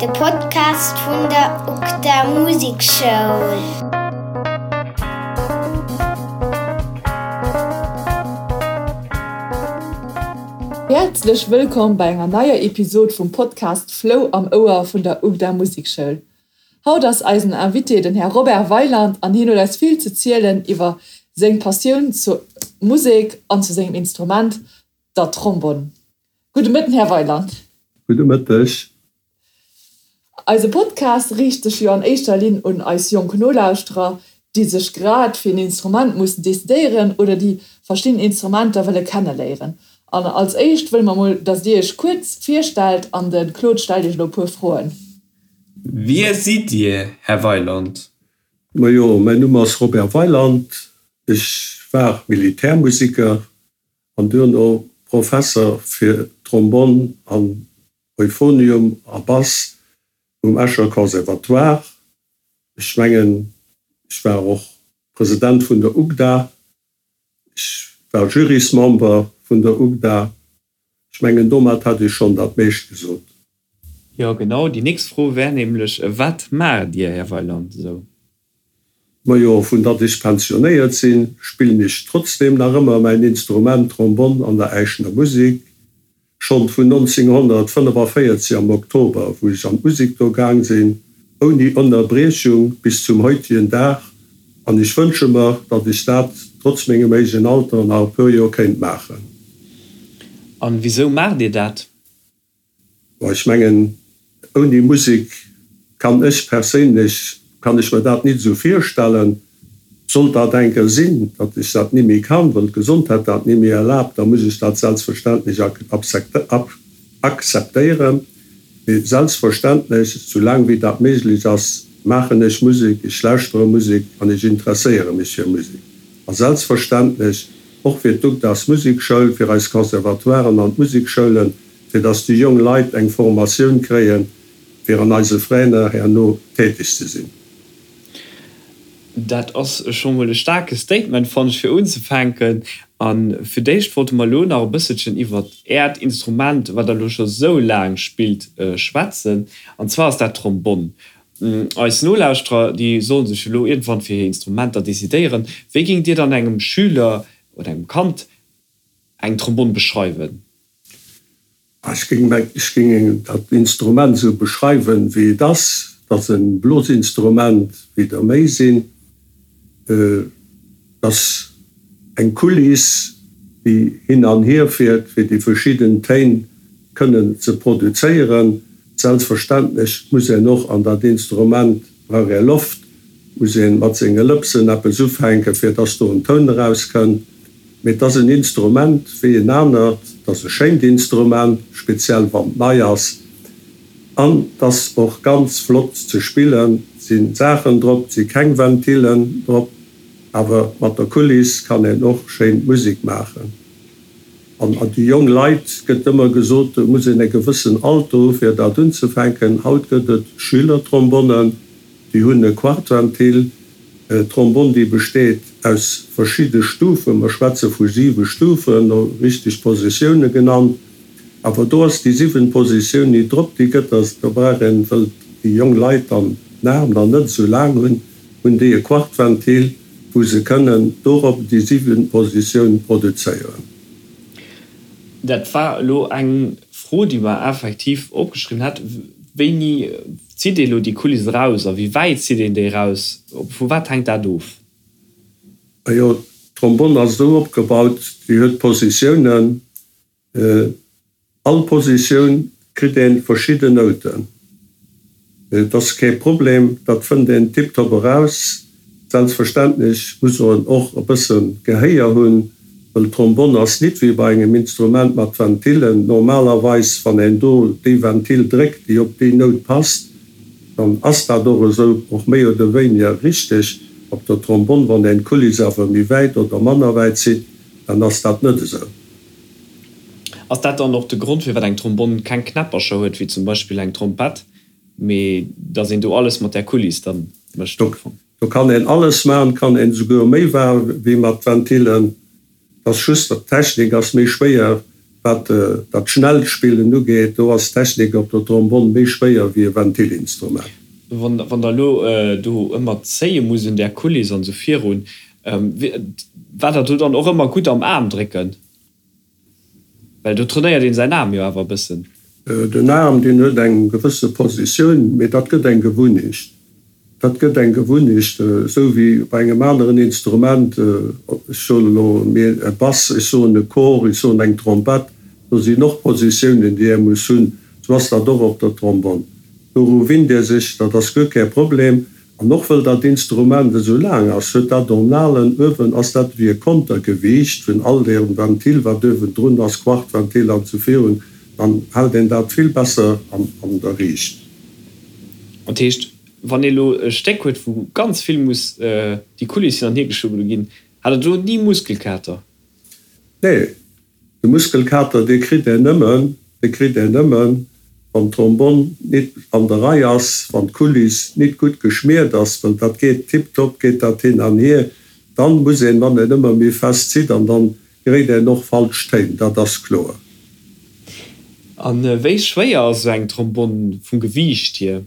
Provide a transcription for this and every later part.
De Podcast vun der UGDA Musekschoul. Häerzlech wëllkomm bei enger neier Episod vum Podcast Flou am Ouer vun der UGDA Musekschoul. Haut ass eisen Invité den Här Robert Weyland an hien huet eis vill ze zielen iwwer seng Passioun zur Musek an zu sengem Instrument, der Trombonn. Gudde Mëtten, Här Weyland. Gudde Mëtteg. Eise Podcast riicht sech jo an éischter Linn un eis jonk Nolauschterer, déi sech grad fir en Instrument mussen decidéieren oder déi verschidden Instrumenter wëlle kenneléieren. An als éischt wëlle mer mol, dass Dir Iech kuerz virstellt an de Claude stellt Iech elo e puer Froen. Wie sidd Dir, Här Weyland? Majo, mäin Numm ass Robert Weyland. Ech war Militärmusiker an duerno Professer fir Trombonn an Euphonium a Bass um Escher Conservatoire. Ech mengen, ech war och President vun der UGDA. Ech war Jurysmember vun der UGDA. Ech mengen, domat hätt ech schonn dat meescht gesot. Jo, genau. Déi nächst Fro wär nämlech, Wat maacht Dir, Här Weyland, esou? Majo, vun datt ech pensionéiert sinn, spillen ech trotzdem nach ëmmer mäin Instrument Trombonn an der Äischener Musik. Schonn vun 1945 am Oktober, wou ech an d'Musik do gaang sinn, ouni Ënnerbriechung bis zum heutigen Dag. An ech wënsche mer, datt ech dat trotz mengem héijen Alter nach e puer Joer kéint maachen. An wisou maacht Dir dat? Bon, ech mengen, ouni Musek kann ech perséinlech, kann ech mer dat nit esou virstellen. Sollt dat eng Kéier sinn, datt ech dat ni méi kann, well d'Gesondheet dat ni méi erlaabt, da muss ech dat selbstverständlech akzeptéieren. Mee selbstverständlech, soulaang wéi dat méiglech ass, maachen ech Musek, ech lauschtere Musek an ech interesséiere mech fir Musek. A selbstverständlech och fir d'UGDAS Musekschoul, fir eis Conservatoiren an d'Musekschoulen, fir dass déi jong Leit eng Formatioun kréien, fir an eise Veräiner herno täteg ze sinn. Dat ass scho mol e staarke Statement, fannen ech, fir unzefänken. A fir d'éischt wollte mer elo nach e bësselchen iwwert Äert Instrument, wat Der elo scho sou laang spillt, schwätzen. An zwar ass dat d'Trombonn. Eis Nolauschterer, déi solle sech elo iergendwann fir hir Instrumenter decidéieren. Wéi géingt Dir dann engem Schüler oder engem Kand eng Trombonn beschreiwen? Ech géing dat Instrument esou beschreiwen, wéi et ass. Et ass e Blosinstrument, wéi der méi sinn. Et ass eng Kuliss, déi hin an hier fiert, fir déi verschidden Téin kënnen ze produzéieren. Selbstverständlech muss een och an dat Instrument brauch ee Loft, muss ee mat senge Lëpsen eppes ufänken, fir dass do en Toun erauskënnt. Mee et ass en Instrument wéi en anert, et ass e schéint Instrument, speziell wann et nei ass. An et ass och ganz flott ze spillen. Et si Saachen drop, et si keng Ventillen drop, awer mat der Kuliss kann een och schéin Musek maachen. An déi jong Leit, gëtt ëmmer gesot, do muss een e gewëssen Alter hu fir dat unzefänken. Haut gëtt et Schülertrombonnen, déi hunn e Quartventil. D'Trombonn, déi besteet aus verschidde Stufen, mer schwätze vu siwe Stufen, no richteg Positioune genannt, awer do ass déi siwent Positioun ni drop, déi gëtt da, do brauch een, wëll déi jong Leit dann den Aarm dann net esou laang hunn, hunn déi e Quartventil, wou se kënnen dorop déi siwent Positioun produzéieren. Dat war elo eng Fro, déi mer effektiv opgeschriwwen hat. Wéini zitt ee elo déi Kuliss eraus a wéi wäit zitt een déi eraus? Vu wat hänkt dat of? Majo, d'Trombonn ass esou opgebaut, déi huet Positiounen. All Positioun kritt een verschidden Nouten. Et ass kee Problem, dat fënnt een tiptop eraus. Selbstverständlech muss en och e bëssen Gehéier hunn, wëll d'Trombonn ass nit wéi bei engem Instrument mat Ventillen. Normalerweis wann een do déi Ventil dréckt, déi op déi Nout passt, dann ass dat och esou, och méi oder wéiniger richteg. Op der Trombonn, wann een d'Kuliss awer méi wäit oder manner wäit zitt, dann ass dat net esou. Ass dat dann och de Grond firwat eng Trombonn keng Knäppercher huet, wéi zum Beispill eng Trompett, mee dass een do alles mat där Kuliss dann mécht am Fong? Do kann een alles maachen, kann een esouguer méi waarm wéi mat Ventilen. Et ass just, d'Technik ass méi schwéier. Wat dat schnellt Spillen ugeet, do ass d'Technik op der Trombonn méi schwéier wéi e Ventilinstrument. Wann Der elo do ëmmer zéie musst un där Kuliss an esou virun, war der do dann och ëmmer gutt am Aarm drécken? Well do trainéiert een säin Aarm jo awer e bëssen. Den Aarm, deen huet eng gewësse Positioun, mee dat gëtt eng Gewunnecht. Dat gëtt eng Gewunnecht, esou wéi bei engem aneren Instrument, ech soen elo e Bass, ech soen e Cor, ech soen eng Trompett, do sinn och Positiounen, déi ee muss hunn. Esou ass dat och op der Trombonn. Doru winnt ee sech, dat ass guer kee Problem. An och wëll dat Instrument esou laang ass, huet dat Ornalen uewen, ass dat ewéi e Kontergewiicht vun all deem Ventil, wat uewendrun ass, Quartventil an esou virun, dann hält een dat vill besser an der Riicht. Dat heescht, wann ee elo e Stéck huet, wou ganz vill muss déi Couliss hin an hier geschubbelt ginn, hat Der do ni Muskelkater? Nee, De Muskelkater, dee kritt een nëmmen, dee kritt een nëmmen, wann d'Trombonn nit an der Rei ass, wann d'Kuliss nit gutt geschmiert ass, well dat geet tiptop, geet dat hin an hier, dann muss een, wann een ëmmer méi fest zitt, an dann geréit een och falsch Téin, dat ass kloer. A wéi schwéier ass esou eng Trombonn vum Gewiicht hier?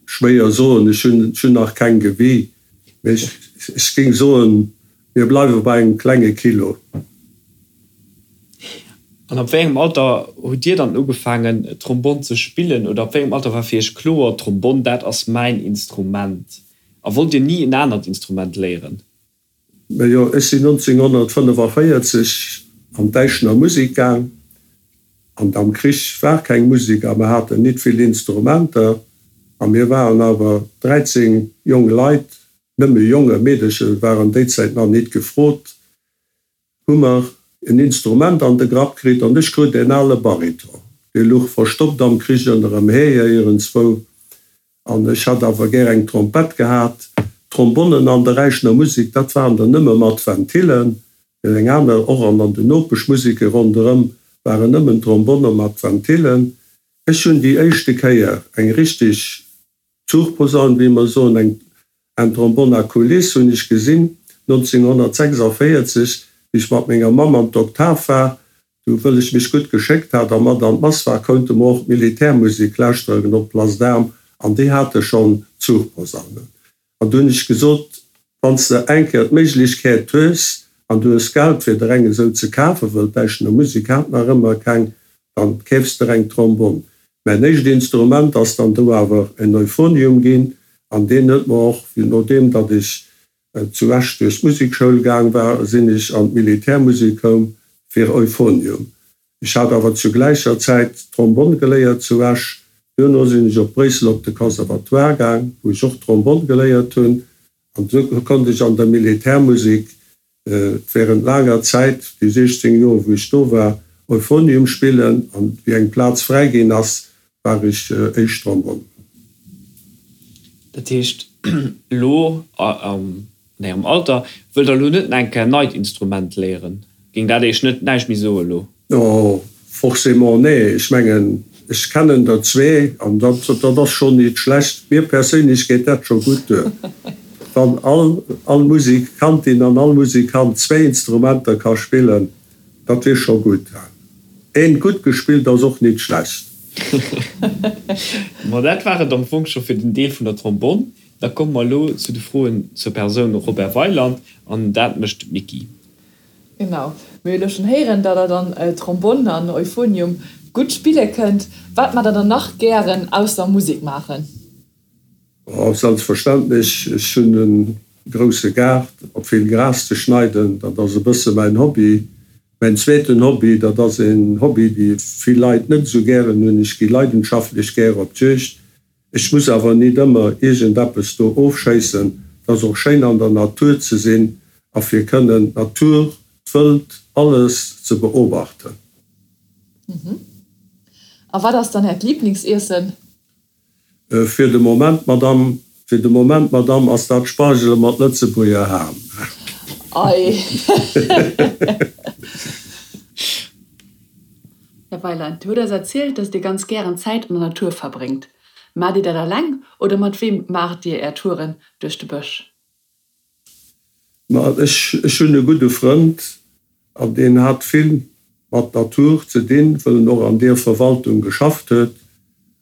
Schwéier soen, ech hunn nach keng gewie, mee ech géing soen, mir bleiwe bei engem klenge Kilo. An ab wéi engem Alter hutt Dir dann ugefaangen Trombonn ze spillen oder ab wéi engem Alter war fir Iech kloer, Trombonn dat ass mäin Instrument? A wollt Dir ni en anert Instrument léieren? Majo, ech sinn 1945 an d'Äischener Musik gaang, an am Krich war keng Musik a mer haten nit vill Instrumenter a mir waren awer 13 jong Leit, nëmme Jongen, Meedeche waren déi Zäit nach nit gefrot, hu mer en Instrument an de Grapp kritt an ech krut en ale Bariton, dee luch verstoppt am Krich ënnerem Hee iergendzwou An ech hat awer gär eng Trompett gehat. Trombonnen an der Äischener Musek, dat waren der nëmme mat Ventillen. Eng aner, och an an den Nopeschmuseke ronderëm waren nëmmen Trombonne mat Ventillen. Ech hunn déi éischte Kéier eng richteg Zuchposaun, wéi mer soen, eng En Trombonne à coulisses hunn ech gesinn 1946, wéi ech mat menger Mamm an d'Oktav war. Du, wëll ech mech gutt geschéckt hat a mat an d'Mass war, kounte mer och d'Militärmusek lauschteren op d'Place d'Armes an déi hate schonn Zuchposaunen. An du hunn ech gesot, Wann s de eng Kéier d'Méiglechkeet hues an du hues Geld fir der eng esou ze kafen, wëll d'Äischener Musek hat nach ëmmer keng, dann keefs der eng Trombonn. Mäin éischt Instrument ass dann do awer en Euphonium ginn an deen huet mer och, nodeem datt ech zu Esch duerch d'Musekschoul gaang war, sinn ech an d'Militärmusek koum fir Euphonium. Ech hat awer zu gläicher Zäit Trombonn geléiert zu Esch. Duerno sinn ech op Bréissel op de Conservatoire gaang, wou ech och Trombonn geléiert hunn. An esou konnt ech an der Militärmusek während laanger Zäit, déi 16 Joer wou ech do war, Euphonium spillen. An wéi eng Plaz fräi ginn ass, war ech éischt Trombonn. Dat heescht, elo am An Ärem Alter wëllt Der elo net nach eng Kéier en neit Instrument léieren? Géing dat Iech net näischt méi soe elo? Jo, forcément, nee. Ech mengen, ech kennen der zwee an dat, dat ass schonn nit schlecht. Mir perséinlech geet dat scho gutt duer. Wann all, all Musikantin an all Musikant zwéi Instrumenter ka spillen, dat wier scho gutt. Eent gutt gespillt ass och nit schlecht. Ma dat war et am Fong scho fir den Deel vun der Trombonn. Da komme mer elo zu de Froen zur Persoun Robert Weyland, an dat mécht d'Micky. Genau, mir hu elo schonn héieren, datt der dann Trombonn an Euphonium gutt spille kënnt. Wat maacht der dann nach gären ausser Musek maachen? Oh, selbstverständlech, ech hunn e grousse Gaart, op vill Gras ze schneiden, dat ass e bësse mäin Hobby. Mäin zweeten Hobby, dat ass een Hobby, dee vill Leit net esou gären hunn, ech gi leidenschaftlech gär op d'Juegd. Ech muss awer nit ëmmer iergend eppes do ofschéissen. Et ass och schéin an der Natur ze sinn a fir kënnen d'Natur, d'Wëld, alles ze beobachten. A wat ass dann Äert Liblingsiessen? Fir de Moment, Madame, fir de Moment, Madame, ass dat Spargele mat Lëtzebuerger Ham. Ei. Här Weiland, Dir hutt eis erzielt, dass Dir ganz gären Zäit an der Natur verbréngt. Maacht Dir dat alleng oder mat weem maacht Dir Är Touren duerch de Bësch? Ma ech hunn e gudde Frënd an deen hat vill. Mat Natur ze dinn, wëll en och an deer Verwaltung geschafft huet.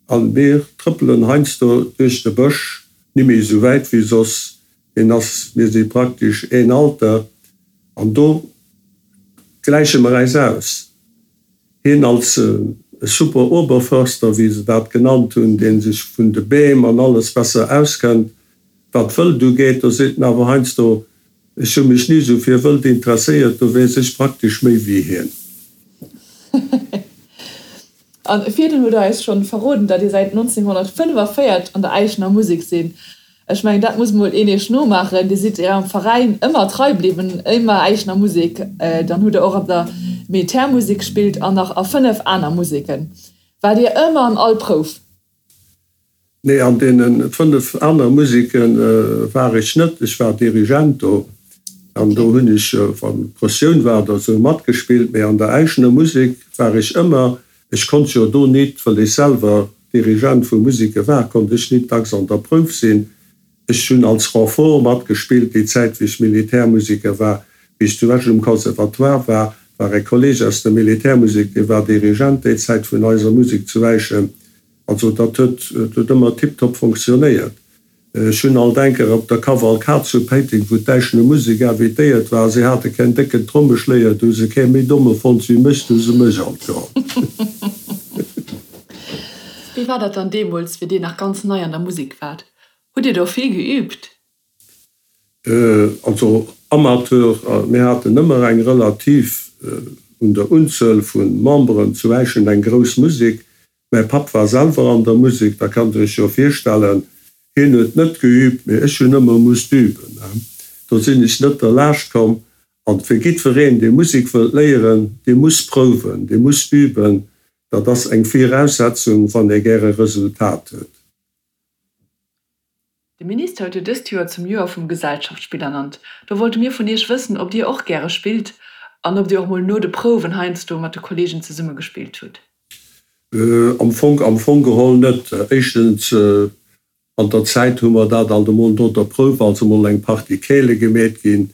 An mir trëppelen heiansdo duerch de Bësch, nimméi esou wäit wéi soss, hien ass, mir si praktesch een Alter, an do gläiche mer äis aus. Hien als e super Oberförster, wéi se dat genannt hunn, dee sech vun de Beem an alles besser auskennt, wat Wëld ugeet, do seet en awer heiansdo, Ech hu mech ni sou fir Wëld interesséiert, do weess ech praktesch méi wéi hien. An virdrun hutt der eis schonn verroden, datt Dir säit 1945 an der Äischener Musek sinn. Ech mengen, dat muss mol een Iech nomaachen. Dir sidd Ärem Veräin ëmmer trei bliwwen, ëmmer Äischener Musek. Dann hutt der och an der Militärmusek gespillt an nach a 5 aner Museken. Waart Dir ëmmer an all Prouf? Nee, an deene 5 aner Museke war ech net. Ech war Dirigent do an do hunn ech, wann Pressioun war oder esou, matgespillt. Mee an der Äischener Musek war ech ëmmer. Ech konnt jo do nit, wëll ech selwer Dirigent vu Museke war, konnt ech nit dacks an der Prouf sinn. Ech hunn als Renfort matgespillt déi Zäit, wéi ech Militärmuseker war. Wéi ech zu Esch um Conservatoire war, war e Kolleg aus der Militärmusek, dee war Dirigent déi Zäit vun eiser Musek zu Äischen. Also dat huet huet ëmmer tiptop fonctionnéiert. Ech hunn alt enker op der Kavalkad zu Péiteng, wou d'Äischener Musek invitéiert war, si hate keen décken Trommeschléier, do hu se kee méi domme fonnt wéi mech, do hu se mech alt geholl. Wéi war dat dann deemools, wéi Dir nach ganz nei an der Musek waart? Hutt Dir do vill geübt? Also Amateur, mir haten ëmmer eng relativ un der Unzuel vu Memberen zu Äischen eng grouss Musek. Mäi Papp war selwer an der Musek, da kannt der iech jo virstellen, hien huet net geübt, mee ech hunn ëmmer musst üben. Do sinn ech net derlaascht komm. An fir jiddwereen, dee Musek wëllt léieren, dee muss prouwen, dee muss üben, dat ass eng Viraussetzung, wann ee gäre Resultat huet. De Minister huet jo dëst Joer zum Joer vum Gesellschaftsspill ernannt. Do wollte mir vun Iech wëssen, ob Dir och gäre spillt an ob Dir och mol no de Prouwen heiansdo mat de Kollegen zesumme gespillt hutt. Am Fong, am Fong geholl net. Éischtens, an der Zäit hu mer dat alt emol no der Prouf, also mol eng Partie Keele gemeet ginn.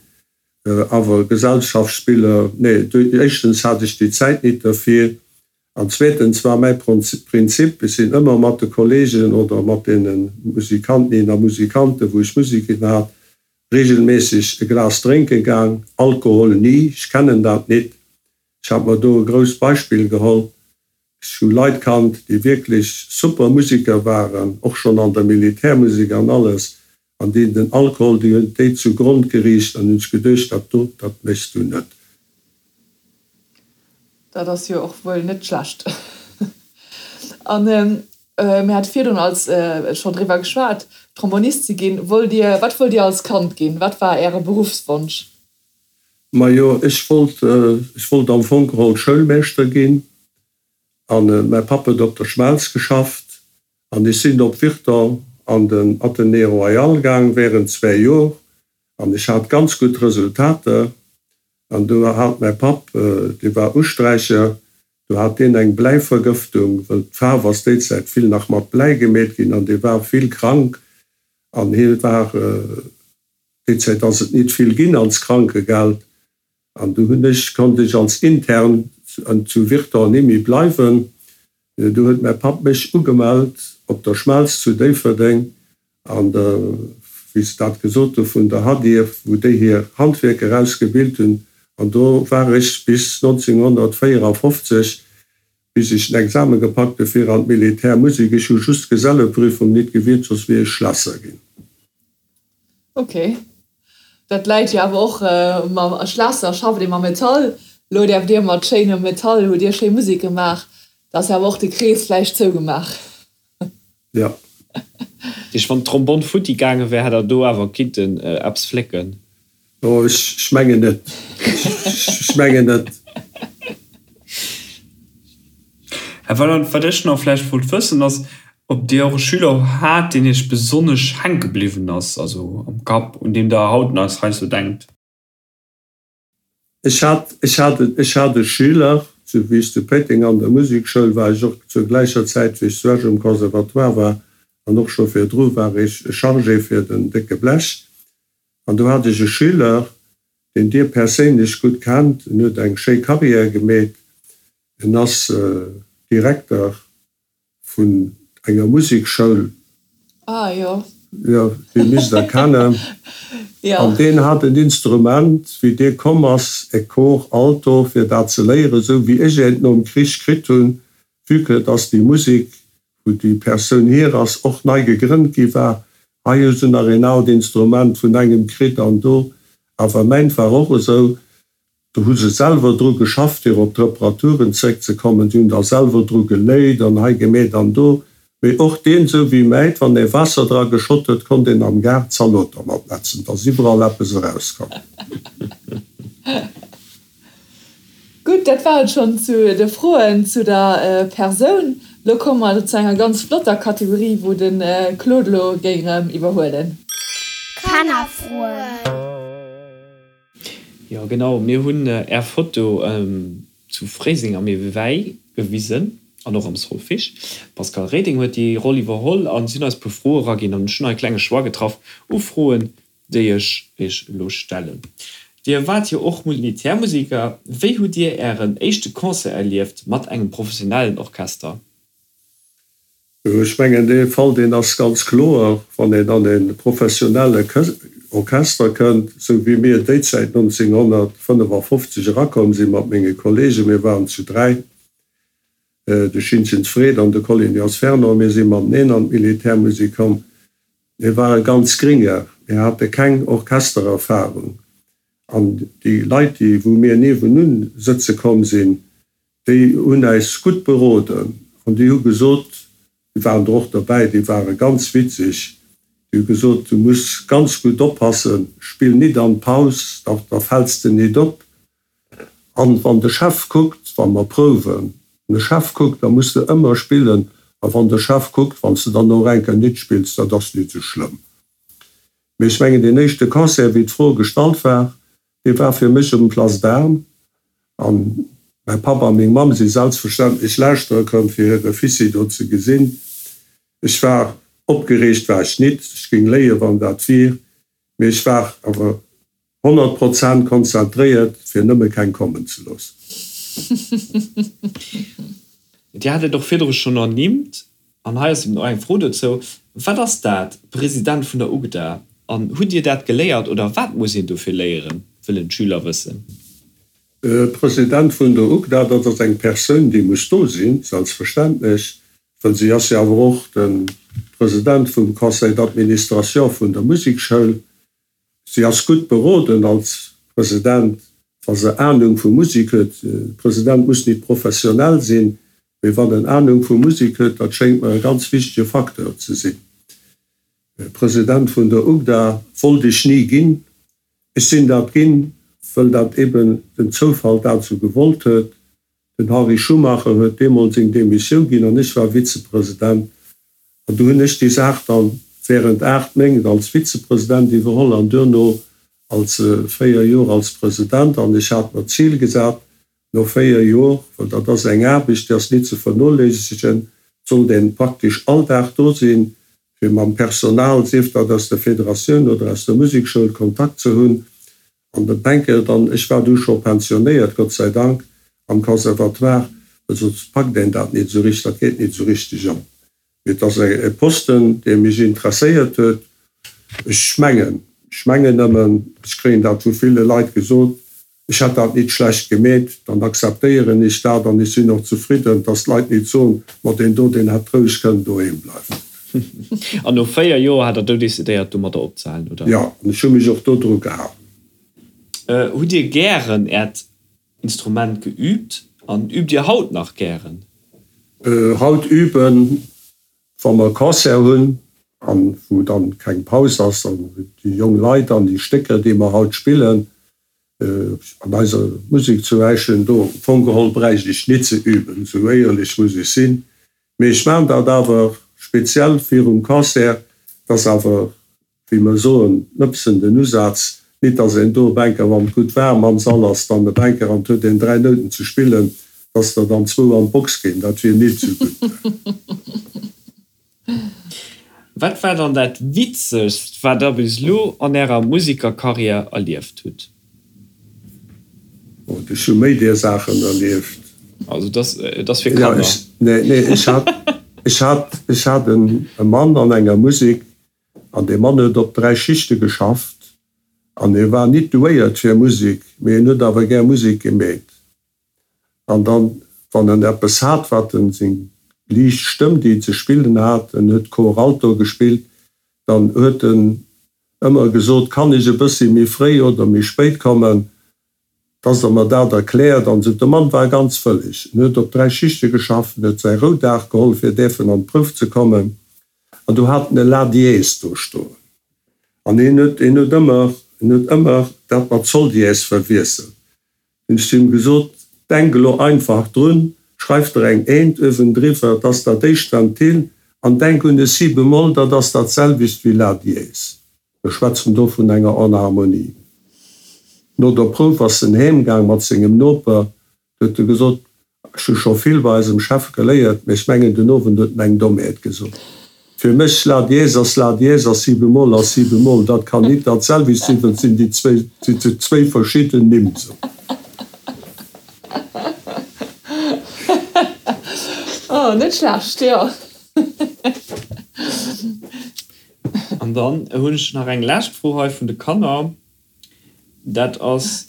Awer Gesellschaftsspiller, nee, éischtens hat ech déi Zäit nit derfir An zweetens war mäi Prinzip, ech sinn ëmmer mat de Kollegen oder mat deene Musikantinnen a Musikanten, wou ech Musek ginn hat, regelméisseg e Glas drénke gaang. Alkohol ni, ech kennen dat nit. Ech hat mer do e grousst Beispill geholl. Ech hu Leit kannt, déi wierklech super Musiker waren, och schonn an der Militärmusek an alles, an déi den Alkohol, déi hunn déi zu Grond geriicht an hunn sech geduecht, dat do, dat méchs du net. Dat ass jo och wuel net schlecht. An mir hate virdrun als schonn driwwer geschwat, Trombonist ze ginn. Wollt Dir, wat wollt Dir als Kand ginn? Wat war Äre Beruffswonsch? Majo, ech wollt, ech wollt am Fong geholl Schoulmeeschter ginn. An mäi Papp huet op der Schmelz geschafft an ech sinn op Virton an den Athenée Royal gaang während zwä Jor an ech hat ganz gutt Resultater. An do hat mäi Papp, dee war Usträicher, do hat deen eng Bläivergëftung, wëll d'Faarf ass déi Zäit vill nach mat Bläi gemeet ginn, an dee war vill krank an hie war, déi Zäit ass et nit vill ginn als Krankegeld, an du hunn ech, konnt ech als Intern zu Virton nimmi bleiwen. Du huet mäi Papp mech ugemellt op der Schmelz zu Déifferdeng an der, wéi se dat gesot hu, vun der Hadierf, wou déi hir Handwierker ausgebilt hunn. An do war ech bis 1954, bis ech den Examen gepackt hu fir an d'Militärmusek. Ech hu just d'Geselleprüfung nit gewiert, soss wier ech Schlässer ginn. Ok. Dat läit jo awer och mam Schlässer, schafft ee mam Metall. Elo däerft Dir mat schéinem Metall, hutt Dir schéi Musek gemaach. Da ass jo awer och de Krees vläicht zougemaach. Jo. Deeg wann d'Trombonn futti gaange wär, hätt der do awer kinnten eppes flécken. Oh, ech mengen net. Ech mengen net. Här Weyland, wat ech nach vläicht wollt wëssen, ass, ob Dir och e Schüler hat, deen Iech besonnesch hänke bliwwen ass, also am Kapp, un deem Der haut nach heiansdo denkt? Ech hat, ech hat, ech hat e Schüler, zu, wéi ech zu Péiteng an der Musekschoul war, ech och zur gläicher Zäit, wéi ech zu Esch um Conservatoire war, an och scho virdru war ech Chargé fir den décke Blech. An do hat ech e Schüler, deen Dir perséinlech gutt kennt, en huet eng schéi Carrière gemeet. En ass Direkter vun enger Musekschoul. Ah jo. Jo, dee misst der kennen. Jo. An deen hat en Instrument, wéi dee komm ass, e Cor alto, fir dat ze léieren, esou wéi ech eent nom Krich kritt hunn, vue que dass déi Musek, wou déi Persoun hier ass, och nei gegrënnt gi war. Hei hu se nach een aalt Instrument vun engem kritt an do. Awer mäint war och esou. Do hu se selwer dru geschafft, fir op d'Reparaturen zréckzekommen. Si hunn da selwer dru geléit an hei gemeet an do. Mee och deen, esou wéi mäit, wann ee Waasser dra geschott huet, konnt een am Gaart Zalot dermat netzen. Et ass iwwerall eppes erauskomm. Gutt, dat war et schonn zu de Froen zu der Persoun. Lo komme mer zu enger ganz flotter Kategorie, wou de Claude lo géing erëm iwwerhuelen. Kannerfroen. Jo genau, mir hunn är Foto zu Fréiseng am Ewei gewisen an och am Solfig. D'Pascale Reding huet déi Roll iwwerholl an si hunn eis e puer Froe eraginn an ech hunn hei e klenge Choix getraff u Froen, déi ech iech elo stellen. Dir waart jo och Militärmusiker, wéi hutt Dir ären éischte Concert erlieft mat engem professionellen Orchester? Ech mengen, dee Fall, deen ass ganz kloer, wann een an e professionelle Orchester kënnt, esou wéi mir déizäit 1955 erakomm si mat menge Kollegen, mir waren zu dräi, de Schinzens Fred an de Collignas Fernand, mir si mateneen an d'Militärmusek komm, mir ware ganz gringer, mir hate keng Orchestererfahrung an déi Leit, déi wou mir niewenun sëtze komm sinn, Déi hunn äis gutt beroden an déi hu gesot, déi waren der och derbäi, déi ware ganz witzeg, déi hu gesot, du muss ganz gutt oppassen, spill nit an d'Paus, da da fäls de nit op. An wann de Chef kuckt, wa mer prouwen, wann de Chef kuckt, da muss de ëmmer spillen, a wann de Chef kuckt, wann s de dann och eng Kéier nit spills, dat ass nit sou schlëmm. Mee ech mengen, deen éischte Concert, wéi d'Fro gestallt war, dee war fir mech um Place d'Armes. An mäi Papp a meng Mamm si selbstverständlech lauschtere komm, fir hire Fissi do ze gesinn. Ech war opgereegt, war ech nit, ech géing léien, wann dat wier, mee ech war awer 100 Prozent konzentréiert, fir nëmme keng kommen ze loossen. Dir hat et och virdru schonn ernimmt, an hei ass eben och eng Fro dozou, Wat ass dat, President vun der UGDA, an hutt Dir dat geléiert oder wat muss een dofir léieren, wëllen d'Schüler wëssen. President vun der UGDA, dat ass eng Persoun, déi muss do sinn, selbstverständlech, well si ass jo awer och de President vum Conseil d'administration vun der Musekschoul. Si ass gutt beroden als President, wa se Ahnung vu Musek huet. E President muss nit professionell sinn, mee wann en Ahnung vu Musek huet, dat schéngt mer e ganz wichtege Facteur ze sinn. President vun der UGDA wollt ech ni ginn. Ech sinn dat ginn, wëll dat eben den Zoufall dat esou gewollt huet. Den Henri Schumacher huet deemools seng Demissioun ginn an ech war Vizepresident. An du hunn ech déi Saach dann während 8 Méint als Vizepresident iwwerholl an duerno als 4 Joer als President. An ech hat mer d'Zil gesat, no 4 Joer, well dat ass eng Aarbecht, déi ass nit ze vernoléissegen, sollt een praktesch all Dag do sinn, fir mam Personal, sief dat aus der Federatioun oder aus der Musekschoul, Kontakt ze hunn. An den Penkel dann, ech war du scho pensionéiert, Gott sei Dank, am Conservatoire, well soss packt een dat nit esou richteg, dat geet nit esou richteg op. Mee et ass e Posten, dee mech interesséiert huet. Ech mengen, ech mengen nëmmen, ech kréien dat vu ville Leit gesot, ech hätt dat nit schlecht gemeet, dann akzeptéieren ech dat an ech sinn och zefridden, dass d'Leit nit soen, ma deen do, deen hätt roueg kënnen doheem bleiwen. An no 4 Joer hat der du decidéiert domadder opzehalen, oder? Jo, an ech hu mech och dodru gehalen. Hutt Dir gären Äert Instrument geüübt an üübt Dir haut nach gären? Haut üben, wa mer Concert hunn an wou dann keng Paus ass an déi jong Leit an déi Stécker déi mer haut spillen an eiser Musek zu Äischen, do am Fong geholl bräicht ech nit ze üben, esou éierlech muss ech sinn. Mee ech maan dat awer speziell virum Concert, dass awer, wéi mer soen, nëpsen den Usaz, nit dass een do e Bänker, wann et gutt waarm am Sall ass, dann e Bänker an et huet een 3 Nouten ze spillen, dass der dann zwou an d'Box ginn, dat wier nit sou gutt. Wat war dann dat Witzegst, wat der bis elo an ärer Musikerkarriär erlieft hutt? Oh, ech hu méi deer Saachen erlieft. Also dat ass fir Kanner. Ja, nee, nee, ech hat, ech hat, ech hat en e Mann an enger Musek, an dee Mann huet op 3 Schichte geschafft, an hie war nit douéiert fir Musek, mee en huet awer gär Musek gemeet. An dann, wann en eppes hat, wat en, seng liicht Stëmm, déi en ze spillen hat, en huet Cor Alto gespillt, dann huet en ëmmer gesot, Kann ech e bëssi méi fréi oder méi spéit kommen, dass Der mer dat erkläert? An esou. De Mann war ganz wëlleg. En huet op 3 Schichte geschafft, en huet säi Roudag geholl, fir däerfen an d'Prouf ze kommen. An do hat en e La Dièse do stoen. An hien huet, hien huet ëmmer, hien huet ëmmer dat mat Sol Dièse verwiesselt. Hunn ech zu him gesot, Denk elo einfach drun, schreif der eng Eent uewendriwwer, 't ass dat éischt Ventil, an denk un e Si bemol, dat ass dat selwecht wéi La dièse. Mir schwätzen do vun enger Enharmonie. No der Prouf ass en heemgaang mat sengem Noper, Du huet e gesot, Ech hu scho vill bei eisem Chef geléiert, mee ech mengen, den Owend huet en eng Dommheet gesot. Fir mech, La dièse ass La dièse a Si bemol ass Si bemol. Dat kann nit dat selwecht sinn, well et sinn déi zwéi, si zwéi verschidden Nimm. Sou. Oh, net schlecht, jo. An dann hunn ech nach eng lescht Fro hei vun de Kanner. Dat ass,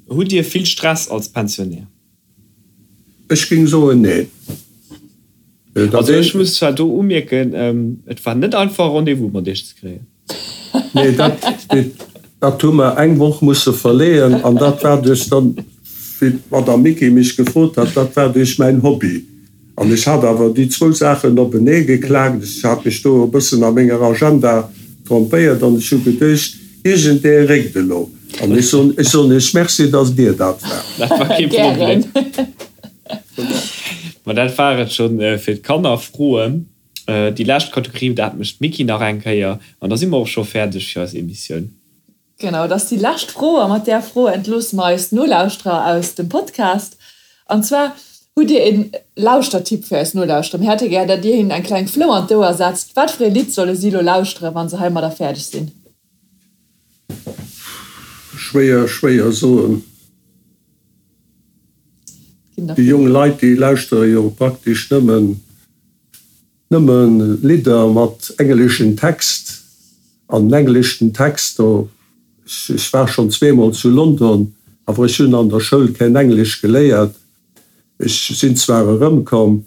Hutt Dir vill Stress als Pensionär? Ech géing soen, neen. Also ech muss zwar do umierken, et war net einfach e Rendez-vous mat Iech ze kréien. Nee, dat, dat hu mer eng Woch musse verleeën an dat war duerch dann, wéi d'Madame Micki mech gefrot hat, dat war duerch mäin Hobby. An ech hat awer déi zwou Saachen openee geklaakt. Ech hat mech do e bëssen a menger Agenda trompéiert an ech hu geduecht, iergendee réckt elo. An ech soen, ech soen Iech Merci, datt Dir dat waart. Dat war kee Problem. Ma dat war et scho fir d'Kannerfroen. Déi lescht Kategorie, dat mécht d'Micky nach eng Kéier an da si mer och scho fäerdeg fir eis Emissioun. Genau, et ass déi lescht Fro a mat där Fro entloosse mer eis Nolauschterer aus dem Podcast. An zwar, Hutt Dir een Lauschtertipp fir eis Nolauschterer? Mir hätte gär, datt Dir hinnen eng kleng Flou an d'Ouer setzt. Wat fir ee Lidd solle si elo lauschteren, wa se heimadder fäerdeg sinn? Schwéier, schwéier soen. Déi jong Leit, déi lauschtere jo praktesch nëmmen Nëmme Lidder mat engleschen Text an den engleschen Text do. Ech war schonn zweemol zu London, awer ech hunn an der Schoul keen Englesch geléiert. Ech sinn zwar erëmkomm,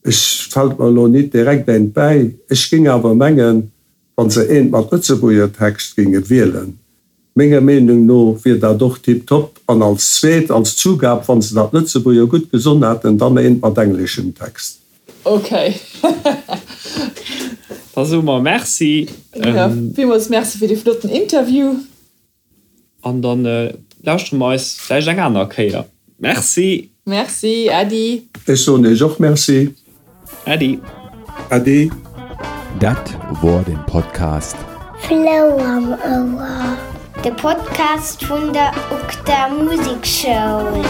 ech fält mer elo nit direkt eent bäi. Ech géing awer mengen, wa se eent mat Lëtzebuerger Text géinge wielen, Menger Meenung no wier dat och tiptop. An als zweet, als Zugab, wann se dat Lëtzebuerger gutt gesonn hätten, dann eent mat engleschem Text. Ok. Da soe mer Merci. Jo, villmools Merci fir dee flotten Interview. An dann lauschtere mer eis vläicht eng aner Kéier. Merci. Merci, Äddi. Ech soen Iech och Merci. Äddi. Äddi. Dat wor den Podcast. Flou am Ouer, de Podcast vun der UGDA Musekschoul.